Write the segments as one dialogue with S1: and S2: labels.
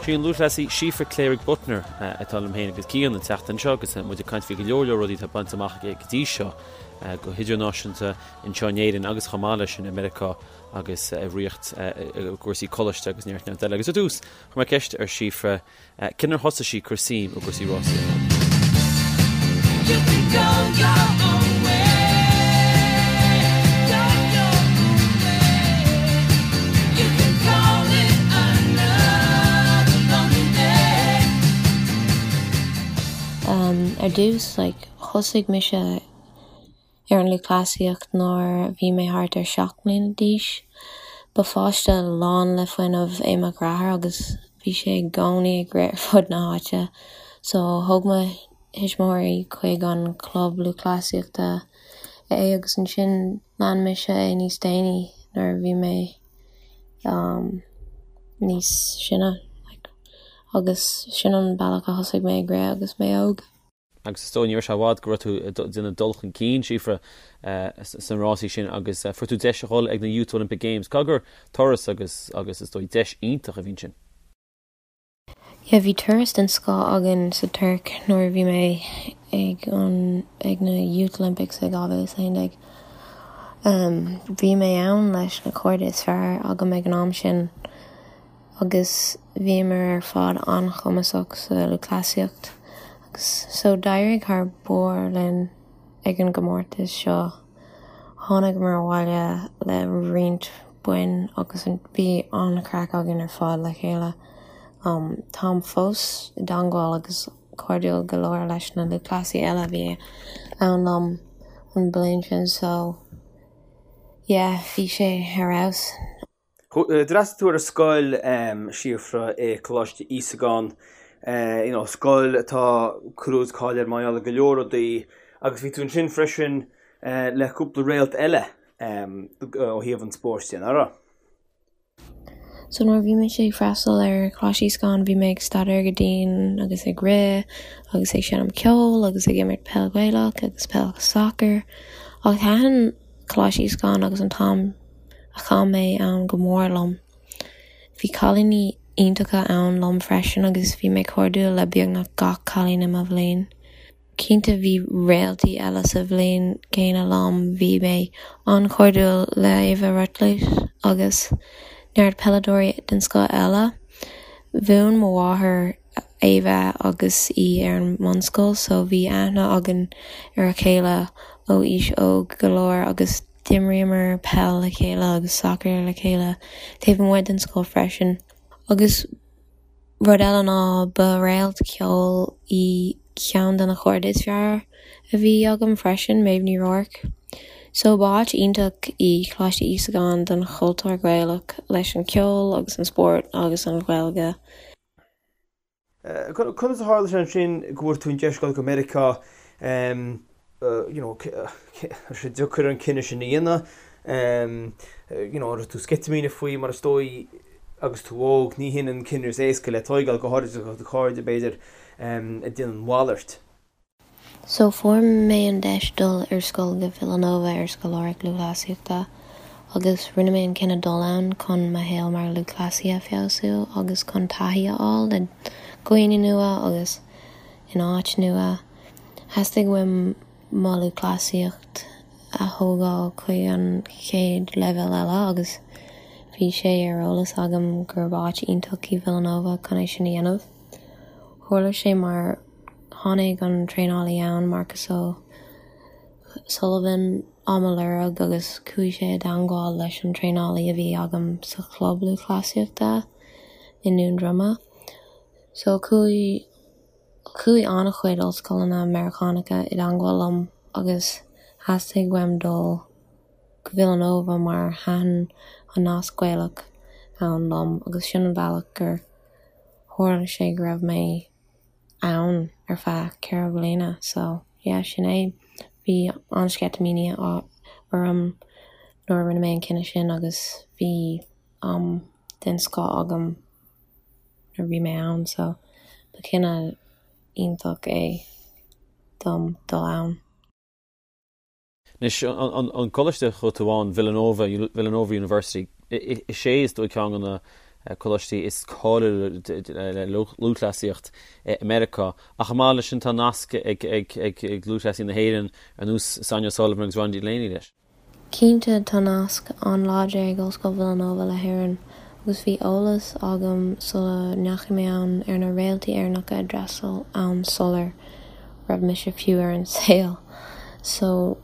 S1: Sí an lúthchleasaí Síofra Cléirigh Buttner atá liom féin agus Cian an tseachtain seo agus muid ag caint faoi go leor leor rudaí atá bainte amach aici go dtí seo go hidirnáisiúnta anseo in Éirinn agus chomh maith leis sin i Meiriceá agus i Ríocht i gcúrsaí coláiste agus neart neart eile. Agus ar dtús, chuir mé ceist ar Síofra cén uair a thosaigh sí ag cur suim i gcúrsaí rásaíochta.
S2: Ar dtús, like, thosaigh mise ar an lúthchleasaíocht nuair a bhí mé thart ar 7 mbliana d'aois. Ba pháiste lán le fuinneamh é mo dheartháir agus bhí sé i gcónaí ag rith ar fud na háite so thóg mo thuismitheoirí chuig an chlub lúthchleasaíochta é agus ansin lean mise é níos déanaí nuair a bhí mé níos sine agus sin an bealach a thosaigh mé ag rith agus mé óg.
S1: Agus is dóigh ní raibh sé i bhfad go raibh tú ag déanamh dul chun cinn, Síofra, sna rásaí sin agus fuair tú deis a dhul ag na Youth Olympic Games. Caithfidh gur turas agus agus is dóigh deis iontach a bhí ansin.
S2: Yeah, bhí turas den scoth againn sa Tuirc nuair a bhí mé ag an ag na Youth Olympics i 2011. Bhí mé ann leis na cairde is fearr agam ag an am sin. agus bhíomar ar fad an-chumasach sa lúthchleasaíocht agus so d'éirigh thar barr linn ag an gcomórtas seo. Tháinigeamar abhaile le roinnt boinn agus bhí an-chraic againn ar fad le chéile. Táim fós i dteangmháil agus cairdiúil go leor leis na lúthchleasaithe eile a bhí ann liom an bliain sin so yeah bhí sé ar fheabhas.
S3: D'fhreastail tú ar an scoil, Síofra, i Coláiste Íosagáin, you know, scoil atá clú agus cáil air mar gheall ar go leor rudaí agus bhí tú ansin freisin le cúpla réalt eile ó thaobh an spóirt de, nach raibh?
S2: So nuair a bhí mise ag freastal ar Choláiste Íosagáin bhí mé ag staidéar go dian agus ag rith agus ag seinm ceoil agus ag imirt peil Ghaelach agus peil sacair ach thaitin Coláiste Íosagáin agus an t-am a chaith mé ann go mór liom. Bhí cailíní iontacha ann liom freisin agus bhí mé cairdiúil le beagnach gach cailín i mo bhliain. Cinnte bhí réaltaí eile sa bhliain gcéanna liom, bhí mé an-chairdiúil le Ava Rutledge agus neart peileadóirí den scoth eile. Mhúin mo mháthair Ava agus í ar an mbunscoil so bhí aithne againn ar a chéile ó aois óg go leor agus d'imríomar peil le chéile agus sacar le chéile taobh amuigh den scoil freisin. Agus rud eile ná ba réalt ceoil í ceann de na cairde is fearr a bhí agam freisin, Méabh Ní Ruairc. So ba áit iontach í Coláiste Íosagáin don chultúr Gaelach leis an ceol agus an spórt agus an Ghaeilge.
S3: Conas a tharla sé ansin go bhfuair tú an deis dul go Meiriceá, you know, raibh sé deacair an cinneadh sin a dhéanamh, you know, an raibh tú sceitimíneach faoi mar is dóigh agus tú óg, ní hin an cinneadh is éasca le tóigeáil, go háirid do chairde b'fhéidir ag déanamh an mhalairt.
S2: So fuair mé an deis dul ar scoil go Villanova ar scoláireacht lúthchleasaíochta agus rinne mé an cinneadh dul ann chun mo shaol mar lúthchleasaí a feabhsú agus chun taithí a fháil le dhaoine nua agus in áit nua. Theastaigh uaim mo lúthchleasaíocht a thógáil chuig an chéad leibhéal eile agus bhí sé ar eolas agam gurb áit iontach í Villanova chun é sin a dhéanamh. Tharla sé mar tháinig an traenálaí ann, Marcus O'Sullivan, á mo lorg agus chuaigh sé i dteangmháil leis an traenálaí a bhí agam sa chlub lúthchleasaíochta i nDún Droma. So chuaigh chuaigh an-chuid ollscoileanna Meiriceánacha i dteangmháil liom agus theastaigh uaim dul go Villanova mar thaitin an nasc Gaelach ann liom agus sin an bealach gur tharla sé go raibh mé ann ar feadh 4 bliana so yeah sin é. Bhí an-sceitimíní orm nuair a rinne mé an cinneadh sin agus bhí am den scoth agam nuair a bhí mé ann so ba chinneadh iontach é dom dul ann.
S1: Anois, an coláiste a chuaigh tú ann, Villanova, Villanova University, is é is dóigh ceann de na. coláistí is cáiliúla le lúthchleasaíocht i Meiriceá. Ach chomh maith leis sin tá nasc ag lúthchleasaí na hÉireann ar nós Sonia O'Sullivan agus Ronnie Delaney leis.
S2: Cinnte, tá nasc an-láidir ag Ollscoil Villanova le hÉirinn agus bhí eolas agam sula ndeachaigh mé ann ar na réaltaí Éireannacha a d'fhreastail ann sular raibh mise fiú ar an saol. So,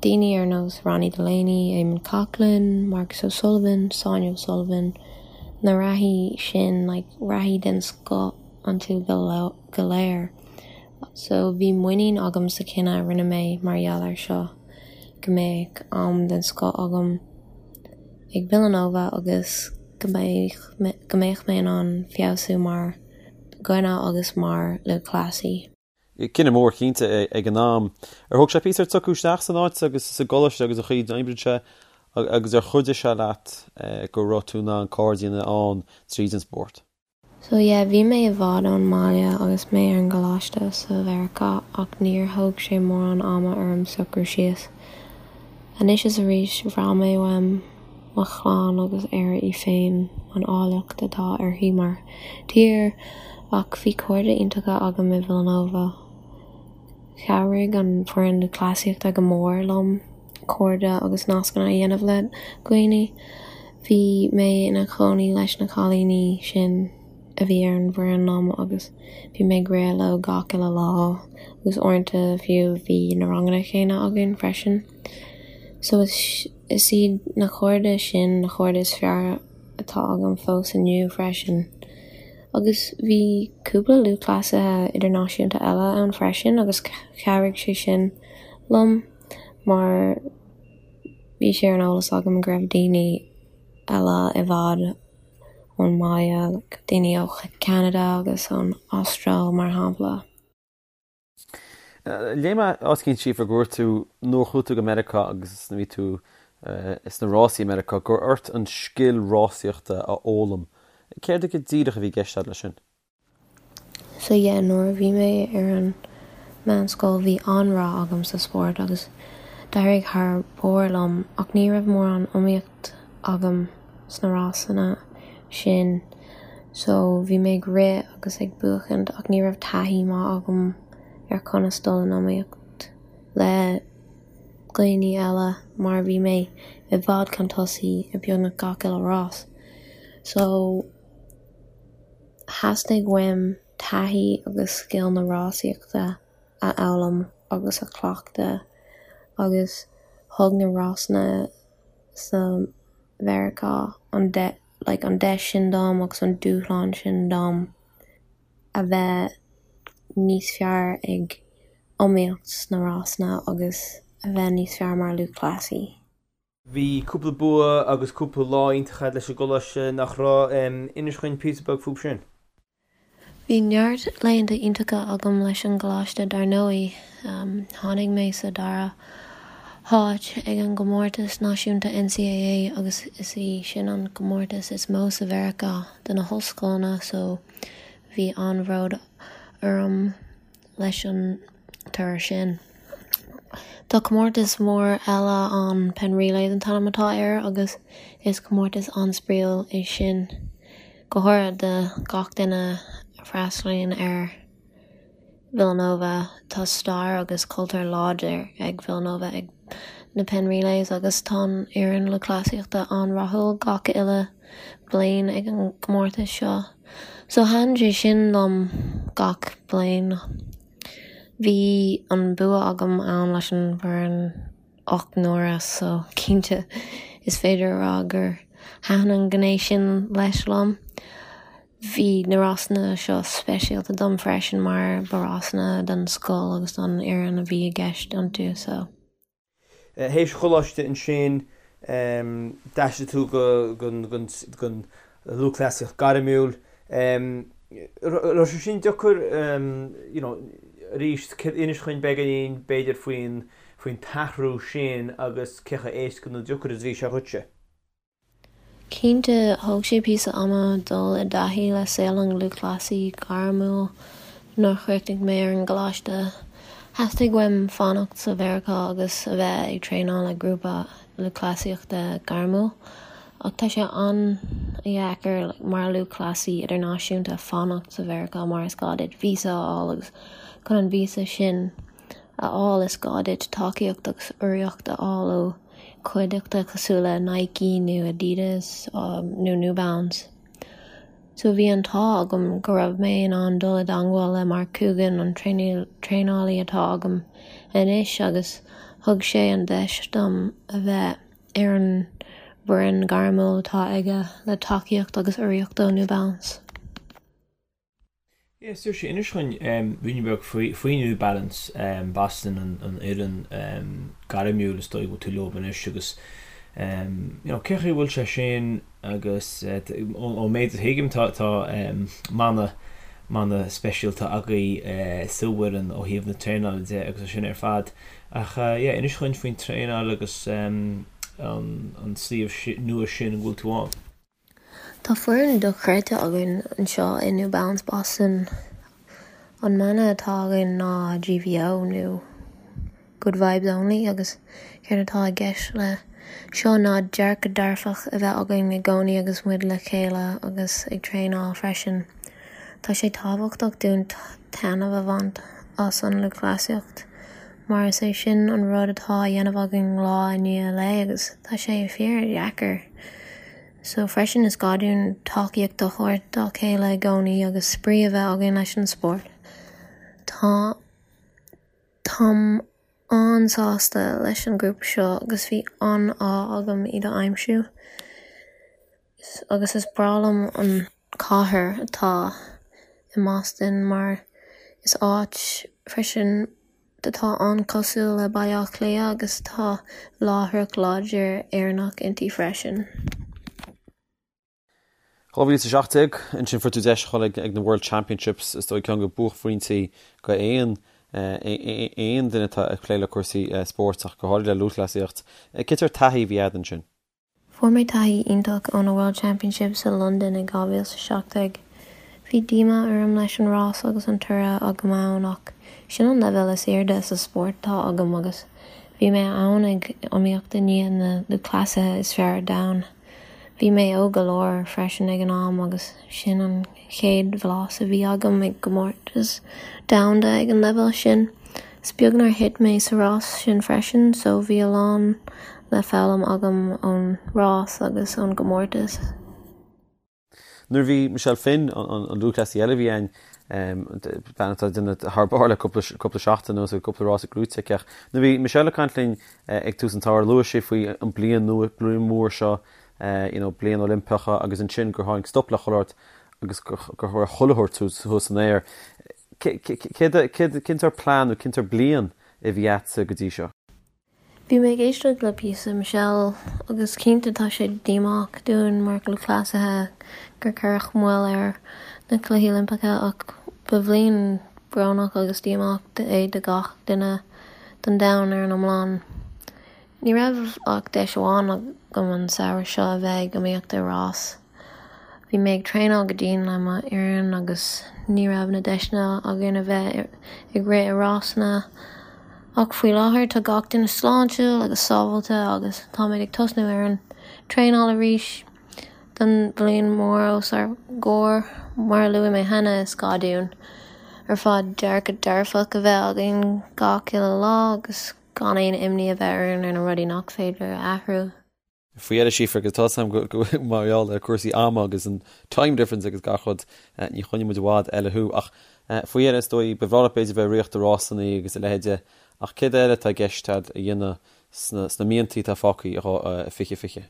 S2: daoine ar nós Ronnie Delaney, Eamonn Coghlan, Marcus O'Sullivan, Sonia O'Sullivan, na reathaí sin, like, reathaí den scoth iontu go léir. So, bhí muinín agam sa chinneadh a rinne mé mar gheall air seo, go mbeadh am den scoth agam ag Villanova agus go mbeadh go mbeadh mé in ann feabhsú mar dhuine agus mar lúthchleasaí.
S1: Cinneadh mór cinnte ag an am. Ar thóg sé píosa ort socrú isteach san áit agus sa gcoláiste agus an chaoi a n-oibríonn sé agus ar chuidigh sé leat go raibh tú in ann cairde a dhéanamh ann tríd an spórt?
S2: So yeah, bhí mé i bhfad ón mbaile agus mé ar an gcoláiste sa Mheiriceá ach níor thóg sé mórán ama orm socrú síos. Anois is arís, bhraith mé uaim mo chlann agus Éire í féin, an áilleacht atá uirthi mar thír, ach bhí cairde iontacha agam i Villanova. Chabhraigh an foireann lúthchleasaíochta go mór liom. cairde agus nascanna a dhéanamh le dhaoine. Bhí mé ina chónaí leis na cailíní sin a bhí ar an bhfoireann liom agus bhí mé ag rith leo gach uile lá agus uaireanta fiú bhí na ranganna céanna againn freisin. So is is iad na cairde sin na cairde is fearr atá agam fós inniu freisin. Agus bhí cúpla lúthchleasaithe idirnáisiúnta eile ann freisin agus chabhraigh sé sin liom. mar bhí sé ar an eolas agam go raibh daoine eile i bhfad ón mbaile, like daoine ó Cheanada agus ón Astráil mar shampla.
S1: Léigh mé áit éicint Síofra go dúirt tú nuair a chuaigh tú go Meiriceá agus nuair a bhí tú sna rásaí i Meiriceá go raibh ort an scil rásaíochta a fhoghlaim. Céard go díreach a bhí i gceist agat leis sin?
S2: So yeah, nuair a bhí mé ar an meánscoil bhí an-rath agam sa spórt agus d'éirigh thar barr liom ach ní raibh mórán iomaíocht agam sna rásanna sin so bhí mé ag rith agus ag buachaint ach ní raibh taithí maith agam ar conas dul in iomaíocht le dhaoine eile mar bhí mé i bhfad chun tosaigh i beagnach gach uile rás. So. Theastaigh uaim taithí agus scil na rásaíochta a fhoghlaim agus a chleachtadh agus thug na rásanna sa Mheiriceá an like an deis sin dom agus an dúshlán sin dom a bheith níos fearr ag iomaíocht sna rásanna agus a bheith níos fearr mar lúthchleasaí.
S3: Bhí cúpla bua agus cúpla lá iontach agat leis an gcoláiste, nach raibh? Inis dhuinn píosa beag fúb sin.
S2: Bhí neart laethanta iontacha agam leis an gcoláiste dar ndóigh. Tháinig mé sa dara háit ag an gcomórtas náisiúnta NCAA agus is í sin an comórtas is mó sa Mheiriceá do na hollscoileanna so bhí an-bhród orm. leis an toradh sin. Tá comórtas mór eile ann, Penn Relays an t-ainm atá air, agus is comórtas an-spraíúil é sin, go háirithe do gach duine a fhreastalaíonn ar Villanova. Tá stair agus cultúr láidir ag Villanova ag na Penn Relays agus tá an fhoireann lúthchleasaíochta an-rathúil gach uile bliain ag an gcomórtas seo. So thaitin sé sin liom gach bliain. Bhí an bua agam ann leis an bhfoireann 8 n-uaire so cinnte is féidir a rá gur thaitin an ghné sin leis liom. Bhí na rásanna seo speisialta dom freisin mar ba rásanna don scoil agus don fhoireann a bhí i gceist iontu so.
S3: Théis choláiste ansin, d'aistrigh tú don lúthchleasaíocht gairmiúil. Raibh sé sin deacair, you know, arís, inis dhuinn beagáinín b'fhéidir faoin faoin t-athrú sin agus cé chomh éasca nó deacair is a bhí sé dhuitse?
S2: Cinnte, thóg sé píosa ama dul i dtaithí le saol an lúthchleasaí gairmiúil nuair a chríochnaigh mé ar an gcoláiste. Theastaigh uaim fanacht sa Mheiriceá agus a bheith ag traenáil le grúpa lúthchleasaíochta gairmiúil. Ach tá sé an-dheacair mar lúthchleasaí idirnáisiúnta fanacht sa Mheiriceá mar is gá duit víosa a fháil agus chun an víosa sin a fháil is gá duit tacaíocht agus urraíocht a fháil ó chuideachta cosúil le Nike nó Adidas nó New Balance. So bhí an t-ádh agam go raibh mé in ann dul i dteangmháil le Mark Coogan, an traenálaí atá agam anois agus thug sé an deis dom a bheith ar an bhfoireann gairmiúil atá aige le tacaíocht agus urraíocht ó New Balance.
S3: Yeah, Saoirse, inis dhúinn ruainne beag faoi New Balance Boston, an fhoireann gairmiúil is dóigh go bhfuil tú leo anois agus you know cén chaoi a bhfuil sé sin agus ón méid a thuigim tá tá mana mana speisialta agaibh sa bhfoireann ó thaobh na traenála de agus é sin ar fad. Ach yeah, inis dhúinn faoin traenáil agus an suíomh nua sin a bhfuil tú ann.
S2: Tá foireann dochreidte againn anseo i New Balance Boston. An mana atá againn ná GVO nó Good Vibes Only agus céard atá i gceist le seo ná dearcadh dearfach a bheith againn i gcónaí agus muid le chéile agus ag traenáil freisin. Tá sé tábhachtach dúinn taitneamh a bhaint as an lúthchleasaíocht mar is é sin an rud atá á dhéanamh againn lá i ndiaidh lae agus tá sé fíor-dheacair. So freisin is gá dúinn tacaíocht a thabhairt dá chéile i gcónaí agus spraoi a bheith againn leis an spórt. Tá Táim an-sásta leis an ghrúpa seo agus bhí an-ádh agam iad a aimsiú. Agus is breá liom an cathair atá i mBoston mar is áit freisin atá an-chosúil le Baile Átha Cliath agus tá láithreacht láidir Éireannach inti freisin.
S1: 2017, ansin fuair tú deis a dhul ag na World Championships, is dóigh ceann de buaicphointí go aon aon duine atá ag plé le cúrsaí spóirt ach go háirid le lúthchleasaíocht. Cén sórt taithí a bhí agat ansin?
S2: Fuair mé taithí iontach ó na World Championships i Londain i 2017. Bhí díomá orm leis an rás agus an toradh agam ann ach sin an leibhéal is airde sa spórt atá agam agus bhí mé ann ag iomaíocht in aghaidh na lúthchleasaithe is fearr ar domhan. Bhí mé óg go leor freisin ag an am agus sin an chéad bhlas a bhí agam i gcomórtas domhanda ag an leibhéal sin. Is beag nár thit mé sa rás sin freisin so bhí a lán le foghlaim agam ón rás agus ón gcomórtas.
S1: Nuair a bhí Michelle Finn, an lúthchleasaí eile a bhí ann, bean atá ag déanamh thar barr le cúpla seachtain anuas agus cúpla rás gnóthaithe aici ach nuair a bhí Michelle ag caint linn ag tús an tsamhraidh luaigh sí faoi an bliain nua, bliain mhór seo you know, bliain Oilimpeach agus ansin gur tháinig stop le chuile shórt agus gur raibh chuile shórt thuas san aer. Cén sórt plean nó cén sórt bliain a bhí agatsa go dtí seo?
S2: Bhí mé ag éisteacht le píosa Michelle agus cinnte tá sé díomách dúinn mar lúthchleasaithe gur cuireadh moill ar na Cluichí Oilimpeacha ach ba bhliain brónach agus díomách é do gach duine don domhan ar an iomlán. Ní raibh ach deis amháin agam an samhradh seo a bheith ag iomaíocht i rás. Bhí mé ag traenáil go dian le mo fhoireann agus ní raibh na deiseanna againn a bheith ag rith i rásanna. Ach faoi láthair tá gach duine sláintiúil agus sábháilte agus táimid ag tosnú ar an traenáil arís don bhliain mhór os ár gcomhair. Mar a luaigh mé cheana, is gá dúinn ar fad dearcadh dearfach a bheith againn gach uile lá agus gan aon imní a bheith orainn ar na rudaí nach féidir a athrú.
S1: Faoi dheireadh, Síofra, agus tá a fhios agam go mar gheall ar cúrsaí ama agus an time difference agus gach rud, ní choinneoidh muid i bhfad eile thú. Ach faoi dheireadh, is dóigh, ba bhreá leat b'fhéidir bheith ag ritheacht i rásanna agus a leithéide, ach céard eile atá i gceist agat a dhéanamh sna míontaí atá fágtha i 2020?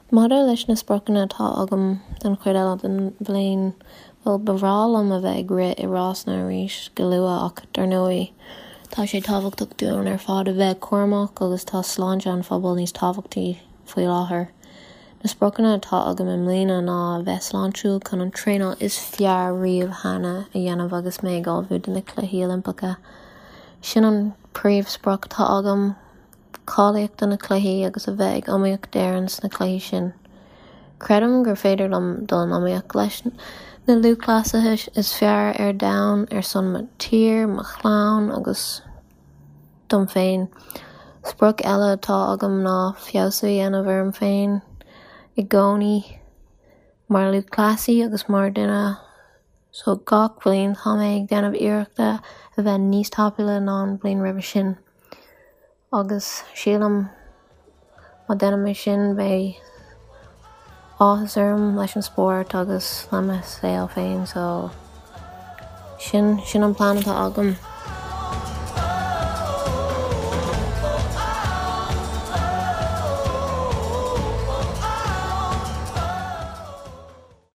S2: Maidir leis na spriocanna atá agam don chuid eile den bhliain, bhuel, ba bhreá liom a bheith ag rith i rásanna arís go luath ach, dar ndóigh, tá sé tábhachtach dúinn ar fad a bheith cúramach agus tá sláinte an phobail níos tábhachtaí faoi láthair. Na spriocanna atá agam i mbliana ná a bheith sláintiúil chun an traenáil is fearr riamh cheana a dhéanamh agus mé ag ullmhú do na Cluichí Oilimpeacha. Sin an príomhsprioc atá agam. cáilíocht do na cluichí agus a bheith ag iomaíocht d'Éirinn sna cluichí sin. Creidim gur féidir liom dul in iomaíocht leis na lúthchleasaithe is fearr ar domhan ar son mo tír, mo chlann agus dom féin. Sprioc eile atá agam ná feabhsú a dhéanamh orm féin. I gcónaí mar lúthchleasaí agus mar duine so gach bliain tá mé ag déanamh iarrachta a bheith níos tapúla ná an bhliain roimhe sin agus sílim má déanaim é sin beidh áthas orm leis an spórt agus le mo saol féin so sin sin an plean atá agam.